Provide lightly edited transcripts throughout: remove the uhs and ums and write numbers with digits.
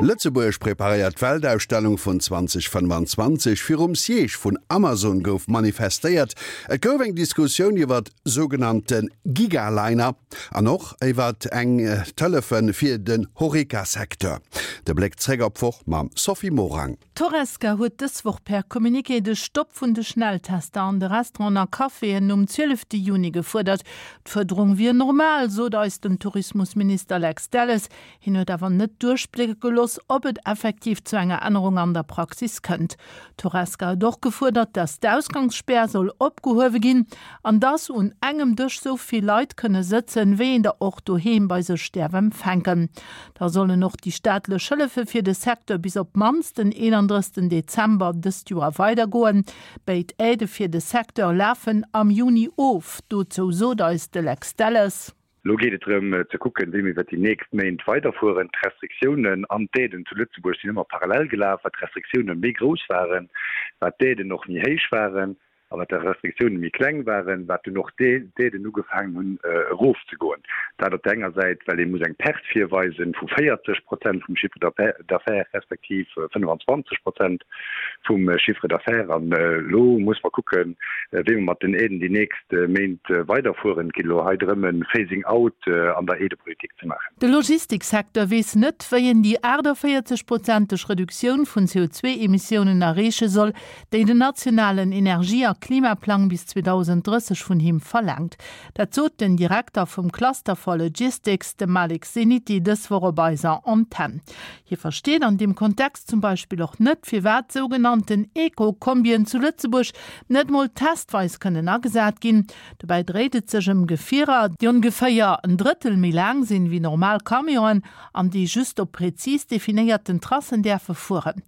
Lëtzebuerg preparéiert d'Weltausstellung vun 2025. Virum Siège vun Amazon gouf manifestéiert. Et gouf eng Diskussioun iwwert sougenannte Gigaliner an och iwwert eng d'Hëllefe fir den Horeca-Secteur. De Bléck zréck op d'Woch mam Sophie Morang. D'Horesca huet dës Woch per Communiqué de Stopp vun de Schnelltester an de Restauranten a Caféen nom 12 Juni gefuerdert. D'Fuerderung wier normal, sot eis den Tourismusminister Lex Delles. Hien huet awer net duerchblécke gelooss, ob et effektiv zu enger Ännerung an der Praxis kënnt. D'Horesca huet och gefuerdert, datt d'Ausgangsspär soll opgehuewe ginn an datt un engem Dësch sou vill Leit kënne sëtzen, wéi een der och doheem bei sech däerf empfänken. Da sollen och déi staatlech Hëllefe fir de Secteur bis op d'mannst den 31 Dezember dëst Joer weidergoen. Béid Aidë fir de Secteur lafen am Juni of. Dozou sot eis de Lex Delles. Elo geet et drëm ze kucken, wéi mir iwwer déi nächst Méint weiderfueren. D'Restriktiounen an d'Aiden zu Lëtzebuerg sinn ëmmer parallel gelaf. Wat d'Restriktioune méi grouss waren, wat d'Aiden och méi héich waren. A wat d'Restriktioune méi kleng waren, wat dunn och d'Aiden ugefaangen hunn erofzegoen. Dat op der enger Säit, well ee muss eng Perte virweisen vu 40 Prozent vum Chiffre d'affaires respektiv 25 Prozent vum Chiffre d'affaires. An elo muss mer kucken, wéi mer mat den Aiden déi nächst Méint weiderfueren. Et geet elo hei drëm, e Phasing out an der Aidepolitik ze maachen. De Logistiksecteur weess net, wéi en déi 48 prozenteg Reduktioun vun CO2-Emissiounen erreeche soll, déi den nationalen Energie a Klimaplang bis 2030 vun him verlaangt. Dat sot den Direkter vum Cluster for Logistics, de Malik Zeniti, dës Woch op eiser Antenn. Hie versteet an deem Kontext zum Beispill och net, firwat sougenannten Eco-Kombien zu Lëtzebuerg net mol testweis kënnen agesat ginn. Dobäi dréit et sech ëm Gefierer, déi ongeféier en Drëttel méi laang sinn wéi normal Camionen an déi just op prezis definéierten Tracen däerfe fueren.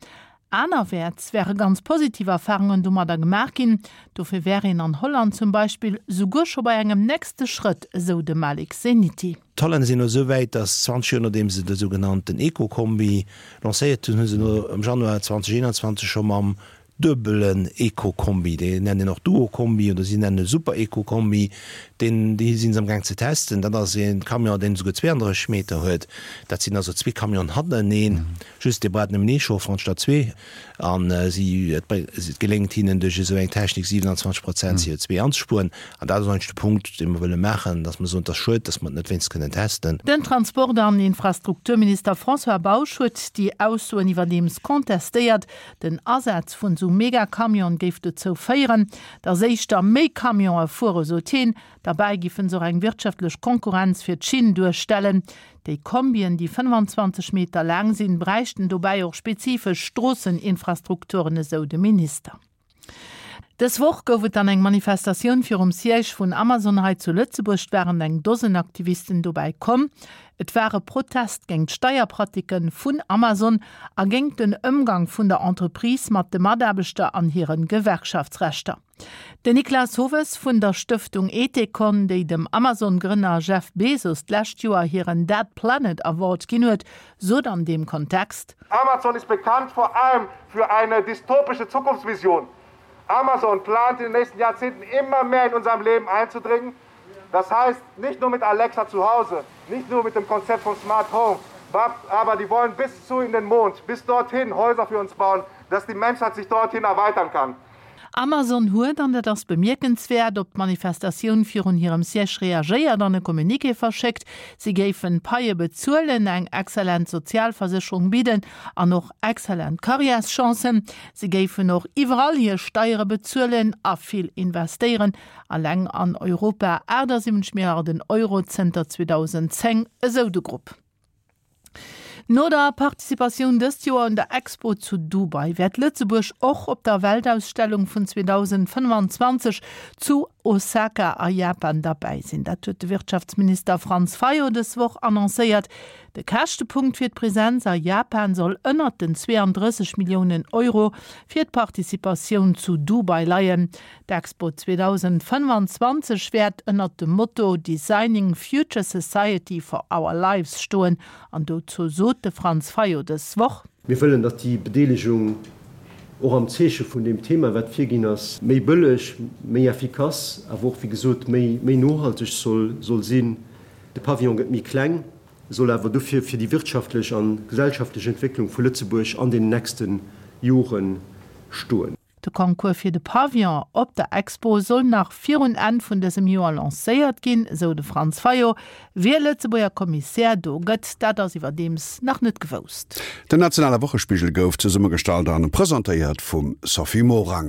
Anerwäerts wäre ganz positiv Erfarungen domadder gemaach ginn. Dofir wär een an Holland zum Beispill souguer scho bei engem nächste Schrëtt, esou de Malik Zeniti. D'Hollänner sinn elo esou wäit, datt 20 Joer nodeem se de sougenannten Eco-Kombi lancéiert hunn, hu se elo am Januar 2021 scho mam duebelen Eco-Kombi, dee nennen een och Duo-Kombi oder si nennen e Super-Eco-Kombi, deen, dee si se amgaang ze testen. Dat ass e Camion, deen esouguer 32 Meter huet. Dat sinn also zwee Camionen hannereneen. Just dee brauch nëmmen ee Chauffer anstatt zwee. An si, et geléngt hinnen duerch esou eng Technik 27 Prozent CO2 anzespueren. An dat ass eigentlech de Punkt, dee mer wëlle maachen, datt mer soen, et ass schued, datt mer et net wéinst kënnen testen. Den Transport an Infrastrukturminister François Bausch huet déi Aussoen iwwerdeems contestéiert. Den Asaz vun esou Megacamione géif dozou féieren, datt éischter méi Camionë fuere, sot hien. Derbäi giffen se och eng wirtschaftlech Konkurrenz fir d'Schinn duerstellen. Déi Kombien, déi 25 Meter laang sinn, bräichten dobäi och spezifesch Stroosseninfrastrukturen, esou de Minister. Dës Woch gouf et dann eng Manifestatioun virum Siège vun Amazon hei zu Lëtzebuerg. Et waren eng Dosen Aktivisten dobäi komm. Et war e Protest géint d'Steierpratiken vun Amazon a géint den Ëmgang vun der Entreprise mat de Mataarbechter an hire Gewerkschaftsrechter. Den Niklas Hoves vun der Stëftung Ethecon, déi dem Amazon-Grënner Jeff Bezos d'lescht Joer hiren Dead Planet Award ginn huet, sot an deem Kontext. Amazon ist bekannt vor allem für eine dystopische Zukunftsvision. Amazon plant in den nächsten Jahrzehnten immer mehr in unserem Leben einzudringen. Das heißt, nicht nur mit Alexa zu Hause, nicht nur mit dem Konzept von Smart Home, aber die wollen bis zu in den Mond, bis dorthin Häuser für uns bauen, dass die Menschheit sich dorthin erweitern kann. Amazon huet, an dat ass bemierkenswäert, op d'Manifestatioun virun hirem Siège reagéiert an e Communiqué verschéckt. Si géifen d'Paie bezuelen, eng exzellent Sozialversécherung bidden an och exzellent Karriärschancen. Si géifen och iwwerall hir Steiere bezuelen a vill investéieren, alleng an Europa 78 Milliarden Euro zënter 2010, esou de Grupp. No der Participatioun dëst Joer un der Expo zu Dubai wäert Lëtzebuerg och op der Weltausstellung vun 2025 zu Osaka a Japan derbäi sinn. Dat huet de Wirtschaftsminister Franz Fayot dës Woch annoncéiert. De Käschtepunkt fir d'Presenz a Japan soll ënnert den 32 Milliounen Euro fir d'Participatioun zu Dubai leien. D'Expo 2025 wäert ënnert dem Motto Designing Future Society for Our Lives stoen an dozou sot de Franz Fayot dës Woch. Mir wëllen, datt déi Bedeelegung och am Zeeche vun deem Thema, wat virginn ass, méi bëlleg, méi effikass, awer och, wéi gesot, méi nohalteg soll sinn. De Pavillon gëtt méi kleng. Soll awer dofir fir déi wirtschaftlech a gesellschaftlech Entwécklung vu Lëtzebuerg an den nächste Jore stoen. De Concours fir de Pavillon op der Expo soll nach virun Enn vun dësem Joer lancéiert ginn, esou de Franz Fayot. Wie Lëtzebuerger Kommissär do gëtt, dat ass iwwerdeems nach net gewousst. Den nationale Wochespigel gouf zesummegestallt an presentéiert vum Sophie Morang.